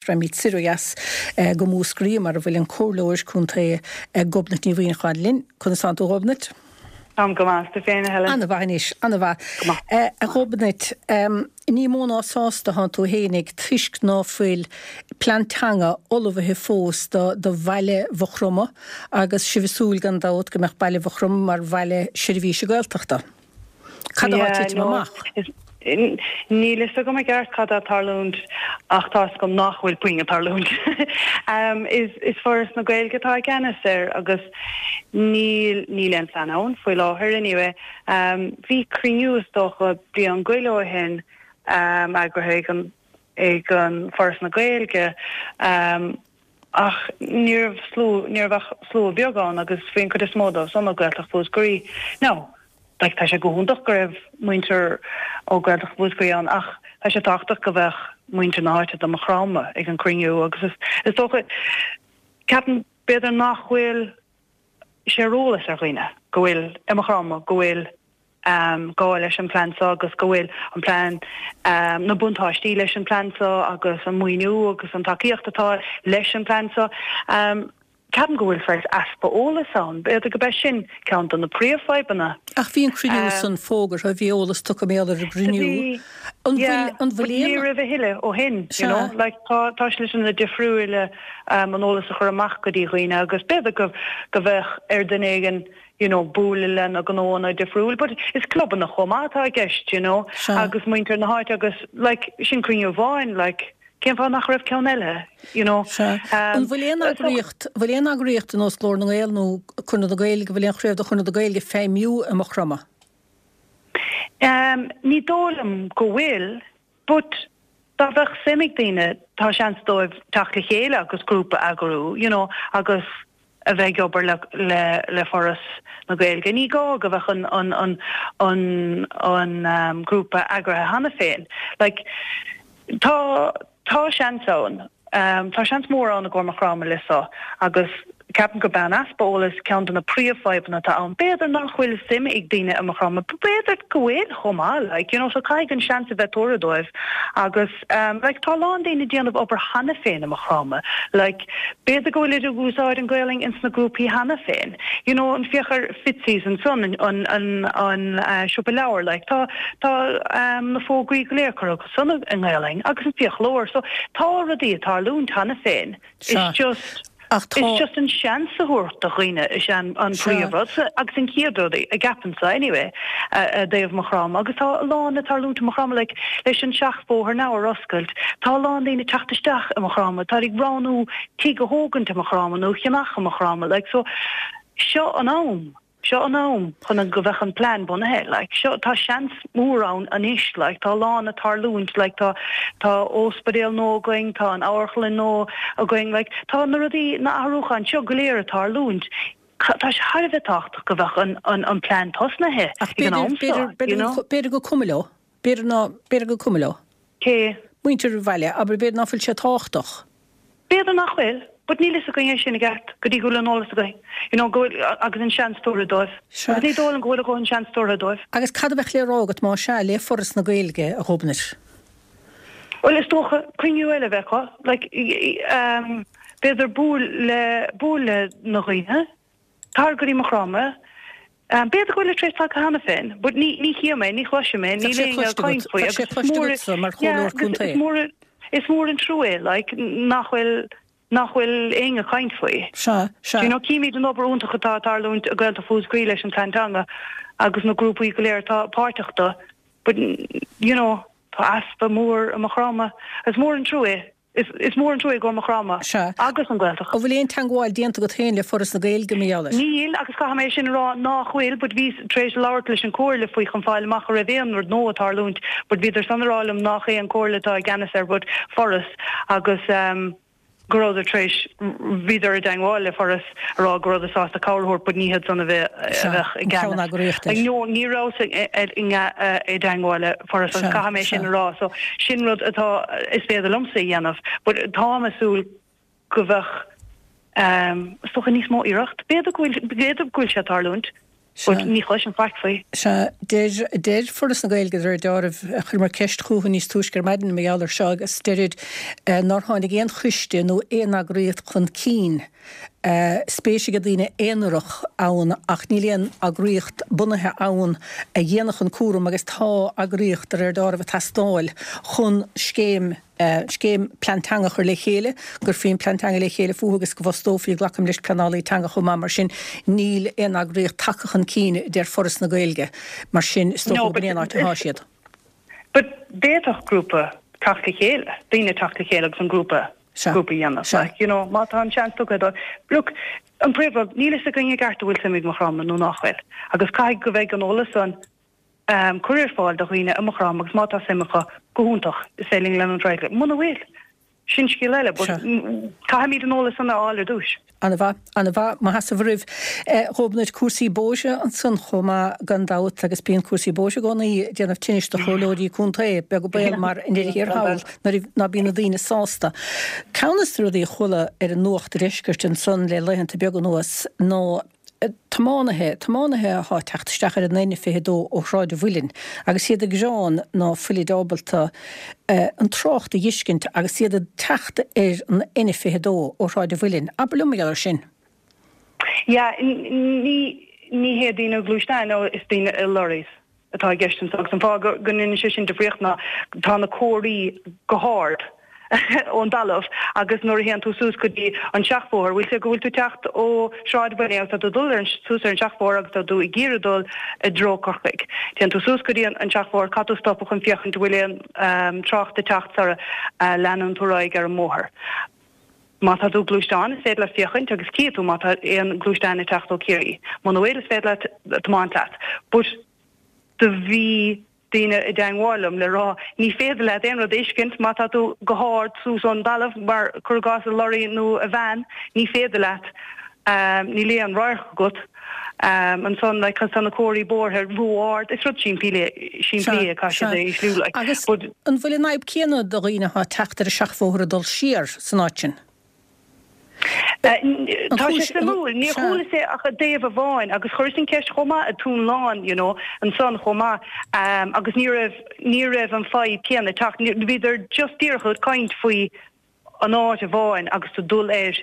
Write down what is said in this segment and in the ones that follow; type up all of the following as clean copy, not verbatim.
Raghaimid soir ó dheas go Múscraí mar a bhfuil an Comhairleoir Contae Gobnait Ní Mhuineacháin linn. Conas tánn tú a Ghobnait? Táim go maith, is tú féin a Helen? Ana mhaith anois, ana mhaith. Go maith. A Ghobnait, ní mó ná sásta thánn tú fhéinig toisc ná fuil plean teanga ullmhaithe fós do do bhaile Mhaigh Chromtha agus sibh ag súil gan dabht go mbeadh baile Mhaigh Chromtha mar bhaile seirbhíse Gaeltachta. Cad atá ag titim amach? Níl fhios agam i gceart cad atá ag tarlúint ach tá fhios agam nach bhfuil puinn ag tarlúint. Is Foras na Gaeilge atá i gceannas air agus níl níl aon plean ann faoi láthair anyway. Bhí cruinniú is dócha bliain go leith ó shin eagraithe ag an ag an Foras na Gaeilge Ach ní raibh slua, ní raibh ach slua beag ann agus bhí an cuid is mó dóibh san ó Gaeltacht Mhúscraí. Now, like, tá sé go hiontach go raibh muintir ó Gaeltacht Mhúscraí ann ach tá sé tábhachtach go bheadh muintir na háite de Maigh Chromtha ag an cruinniú agus is, is dócha, ceapaim b'fhéidir nach bhfuil sé ar eolas ar dhaoine go bhfuil i Maigh Chromtha go bhfuil gá leis an plean seo agus go bhfuil an plean, na buntáistí leis an plean seo agus an maoiniú agus an tacaíocht atá leis an plean seo. Ceapaim go bhfuil saghas easpa eolas ann. B'fhéidir go b'é sin ceann de na príomhfhadhbanna. Ach bhí an cruinniú san fógartha, bhí eolas tugtha mar gheall ar an gcruinniú. Bhí, An bhfuil, an bhfuil aon. Ní raibh a thuilleadh ó shin, you know. Like tá, tá sliteanna difriúila an eolas a chur amach go dtí dhaoine agus b'fhéidir go, go bheadh ar duine éigin you know, bualadh le na gnóanna difriúil, but is clubanna chomh maith atá i gceist, you know, Sea. agus muintir na háite agus, like, sin cruinniú amháin, like, cén fáth nach raibh ceann eile, you know. Sea. An bhfuil aon eagraíocht, bhfuil aon eagraíocht ar nós Glór na nGael nó Conradh na Gaeilge, bhfuil aon chraobh de Chonradh na Gaeilge ag feidhmiú i Maigh Chromtha? Um, ní dóigh liom go bhfuil, But dá bheadh suim ag daoine, tá seans dóibh teacht le chéile agus grúpa a eagrú, you know, agus a bheith ag obair le le le Foras na Gaeilge. Ní gá go bheadh an an an an an grúpa eagraithe cheana féin. Like, tá tá seans ann. Tá seans mór ann i gcomhair Maigh Chromtha le seo agus ceapaim gurb é an easpa eolais ceann de na príomhfhadhbanna atá ann. B'fhéidir nach bhfuil suim ag daoine i Maigh Chromtha, b'fhéidir go bhfuil chomh maith, like, you know, so caithfidh an seans a bheith tabhartha dóibh agus like tá a lán daoine ag déanamh obair cheana féin i Maigh Chromtha, like b'fhéidir go bhfuilid ag úsáid an Ghaelainn ins na grúpaí cheana féin, you know, an féach ar Fitzy's ansan, an, an, an, an siopa leabhar, like tá, tá na fógraí go léir curtha san i nGaelainn agus an fiaclóir. So tá rudaí ag tarlúint cheana féin. It's just Ach tá. It's just an seans a thabhairt do dhaoine is ea an príomhrud agus an chéad rud a gceapaimse anyway i dtaobh Maigh Chromtha agus tá a lán ag tarlúint i Maigh Chromtha like leis an seachbhóthar now ar oscailt tá a lán daoine ag teacht isteach i Maigh Chromtha tá ag roghnú tigh a thógaint i Maigh Chromtha nó a cheannach i Maigh Chromtha like so seo an am. Seo an am chun go bheadh an plean bunaithe, like, seo, tá seans mór ann anois, like, tá a lán ag tarlúint, like, tá, tá ospidéal nua againn, tá an amharclann nua againn, like, tá na rudaí, na athrúcháin seo go léir ag tarlúint. Tá sé thar a bheith tábhachtach go bheadh an, an, an plean tosnaithe Ach ag an am seo, you know. B'fhéidir gur cuma leo. B'fhéidir ná, b'fhéidir gur cuma leo. Cé? Muintir an bhaile, abair, b'fhéidir ná fuil sé tábhachtach. B'fhéidir nach bhfuil, but níl fhios againn é sin i gceart go dtí go bhfuil an eolas againn, you know, go bhfuil, agus an seans tabhartha dóibh. Sea. Agus ní dóigh liom go bhfuil a dhóthain seans tabhartha dóibh. Agus cad a bheadh le rá agat más ea, le Foras na Gaeilge, a Ghobnait? Bhuel, is dócha cruinniú eile a bheith acu, like, ehm, b'fhéidir buail le, buail le na dhaoine, tar go dtí Maigh Chromtha, B'fhéidir go bhfuil tar éis tagtha cheana féin, but ní ní chím é, ní chloisim é, níl éinne ag caint faoi agus is mór mar yeah, agus is mór is mór an trua é like nach bhfuil nach bhfuil éinne ag caint faoi. Sea, sea. You know, címid an obair iontach atá ag tarlúint i Gaeltacht Mhúscraí leis an Plean Teanga agus na grúpaí go léir atá páirteach do, but you know, tá easpa mór i Maigh Chromtha. Is mór an trua é. Is mór an trua é i gcomhair Maigh Chromtha Sea. agus an Ghaeltacht. An bhfuil aon teangmháil déanta agat féin le Foras na Gaeilge mar gheall air? Níl, agus caithfidh mé sin a rá nách bhfuil, but bhíos tar éis labhairt leis an Comhairle faoi chun fáil amach an raibh aon rud nua ag tarlúint, but bhíodar san a rá liom nách é an Comhairle atá i gceannas air but Foras agus ehm go rabhadar tar éis, bhíodar i dteangmháil le Foras a rá go rabhadar sásta cabhair a thabhairt but ní hiad san a bheadh Sea, i an gceannas. ceann-eagraíocht air. No, ní rabhas i dteangmháil le Foras agus Sea, caithfidh mé sin sea. a rá. So sin rud atá, is féidir liomsa a dhéanamh but táim ag súil go bheadh, is dócha níos mó iarracht. B'fhéidir go bhfuil, b'fhéidir go bhfuil sé ag tarlúint. But ní chloisim faic faoi. Sea, deir, deir Foras na Gaeilge, de réir deáraimh, chuireamar ceist chucu níos túisce ar maidin mar gheall air seo agus deirid nár tháinig aon choiste nó aon eagraíocht chun cinn. Spéis ag daoine aonarach ann ach níl aon eagraíocht bunaithe ann a dhéanfadh an cúram agus tá eagraíocht, de réir deáraimh, ag teastáil chun scéim, scéim plean teanga a chur le chéile, go gcuirfí an plean teanga le chéile fúthu agus go bhfostófaí, glacaim leis, pleanálaí teanga chomh maith. Mar sin, níl aon eagraíocht tagtha chun cinn, a deir Foras na Gaeilge. Mar sin, is dócha gurb in é an áit atá siad. But d'fhéadfadh grúpa teacht le chéile, daoine teacht le chéile agus an grúpa grúpa a dhéanamh. Like, you know, má tá an seans tugtha dó. Look, an príomhrud, níl fhios againn i gceart an bhfuil suim ag Maigh Chromtha nó nach bhfuil. Agus caithfidh go bheidh an eolas san um, curtha ar fáil do dhaoine i Maigh Chromtha agus má tá suim acu, go hiontach, is féidir linn leanúint ar aghaidh. Muna bhfuil, sin scéal eile, but caithfimid an eolas san a fháil ar dtúis. Ana-mhaith, ana-mhaith, mo sheasamh oraibh. A Ghobnait, cúrsaí bóithre ansan chomh maith gan dabht agus bíonn cúrsaí bóithre i gcónaí ag déanamh tinnis do chomhairleoirí contae, beag an baol mar i ndeireadh thiar thall nuair ná bíonn na daoine sásta. Ceann des na rudaí a chuala ar an nuacht deiscirt ansan le laethanta beaga anuas ná tiománaithe, tiománaithe athá ag teacht isteach ar an N22 ó Shráid an Mhuilinn agus iad ag gearán ná fuilid ábalta an trácht a dh'fheiscint agus iad ag teacht ar an N22 ó Shráid an Mhuilinn. Abair liom mar gheall air sin. Yeah, ní, ní hé daoine gluaisteáin, no, is daoine i lorries atá i gceist anseo agus an fáth go ndéanann sé sin difríocht ná tá na comharthaí go hard ón dtalamh agus nuair a théann tú suas go dtí an seachbhóthar, bhfuil sé go bhfuil tú teacht ó Shráid an Mhuilinn agus tá tú ag dul ar an suas ar an seachbhóthar agus tá tú ag iarraidh dul i dtreo Corcaigh. Téann tú suas go dtí an seachbhóthar, caithfidh tú stopadh chun féachaint an bhfuil aon trácht ag teacht sara leanann tú ar aghaidh ar an mbóthar. Má tá tú i gluaisteán, is féidir leat féachaint agus cífidh tú má tá aon gluaisteán ag teacht ó Ciarraí. Muna bhfuil, is féidir leat tiomáint leat. But do bhí daoine i dteangmháil liom le rá ní féidir leat aon rud a fheiscint má tá tú go hard suas ón dtalamh mar cuir i gcás i lorry nó i veain ní féidir leat níl aon radharc agat ansan like cos tá na comharthaí bóithre ró-ard is rud simplí simplí é caithfidh siad é ísliú like Agus but an bhfuil an fhadhb céanna do dhaoine atá ag teacht ar an seachbhóthar ag dul siar san áit sin? Tá sé suimiúil. Níor chualas é ach i dtaobh amháin agus chuireas an ceist chomh maith i Dún Lán, you know, ansan chomh maith agus ní raibh, ní raibh an fadhb céanna ag teacht. Bhíodar just díreach ag caint faoi an áit amháin agus tú dul ar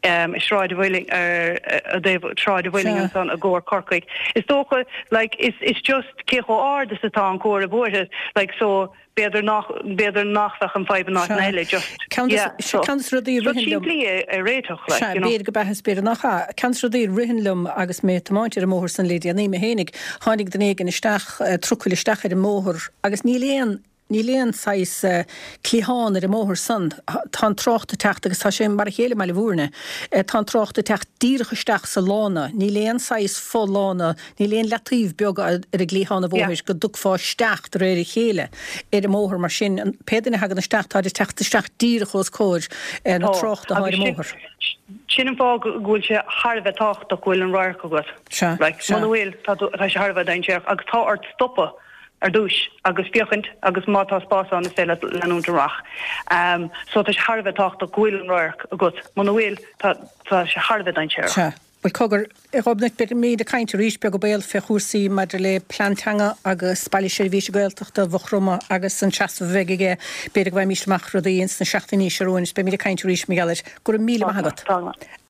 Sráid an Mhuilinn, ar i dtaobh Sráid an Mhuilinn ansan i gcomhair Corcaigh. Is dócha, like, is, is just cé chomh ard is atá an comhartha bóithre, like, so, B'fhéidir nach, b'fhéidir nach bheadh an fadhb in áiteanna eile, just, Ceann yeah, so, ceann des rudaí a rud ritheann liom, simplí é a réiteach, like, Sea, you know. b'fhéidir go b'ea is b'fhéidir nach ea. Ceann des rudaí a ritheann liom agus mé ag tiomáint ar an mbóthar san le déanaí mé fhéinig, tháinig duine éigin isteach, trucail isteach ar an mbóthar agus níl aon, níl aon saghas cliathán ar an mbóthar san. Tá an trácht ag teacht agus tá sé mar a chéile i mBaile Mhúirne. Tá an trácht ag teacht díreach isteach sa lána. Níl aon saghas fo-lána Níl aon leataobh beag ar an gcliathán an bhóthair go dtiocfá isteach de réir a chéile ar an mbóthar mar sin pé duine a thagann isteach táid ag teacht isteach díreach os comhair na tráchta atá ar an mbóthar. Sin an fáth go bhfuil sé thar a bheith tábhachtach go bhfuil an radharc agat. Sea, sea. Muna bhfuil, tá tá sé thar a bheith dainséarach agus tá ort stopadh ar dtúis agus féachaint agus má tá spás ann is féidir leat leanúint amach. So tá sé thar a bheith tábhachtach go bhfuil an radharc agat. Muna bhfuil, tá tá sé thar a bheith dainséarach. Sea. Bhuel, cogar, a Ghobnait, beimid ag caint arís, beag an baol, fé chúrsaí maidir le plean teanga agus Baile Seirbhíse Gaeltachta Mhaigh Chromtha agus an seasamh a bheidh aige. B'fhéidir go bhfaighimís amach rudaí ins na seachtainí seo romhainn is beimid ag caint arís mar gheall air. Go raibh míle maith agat.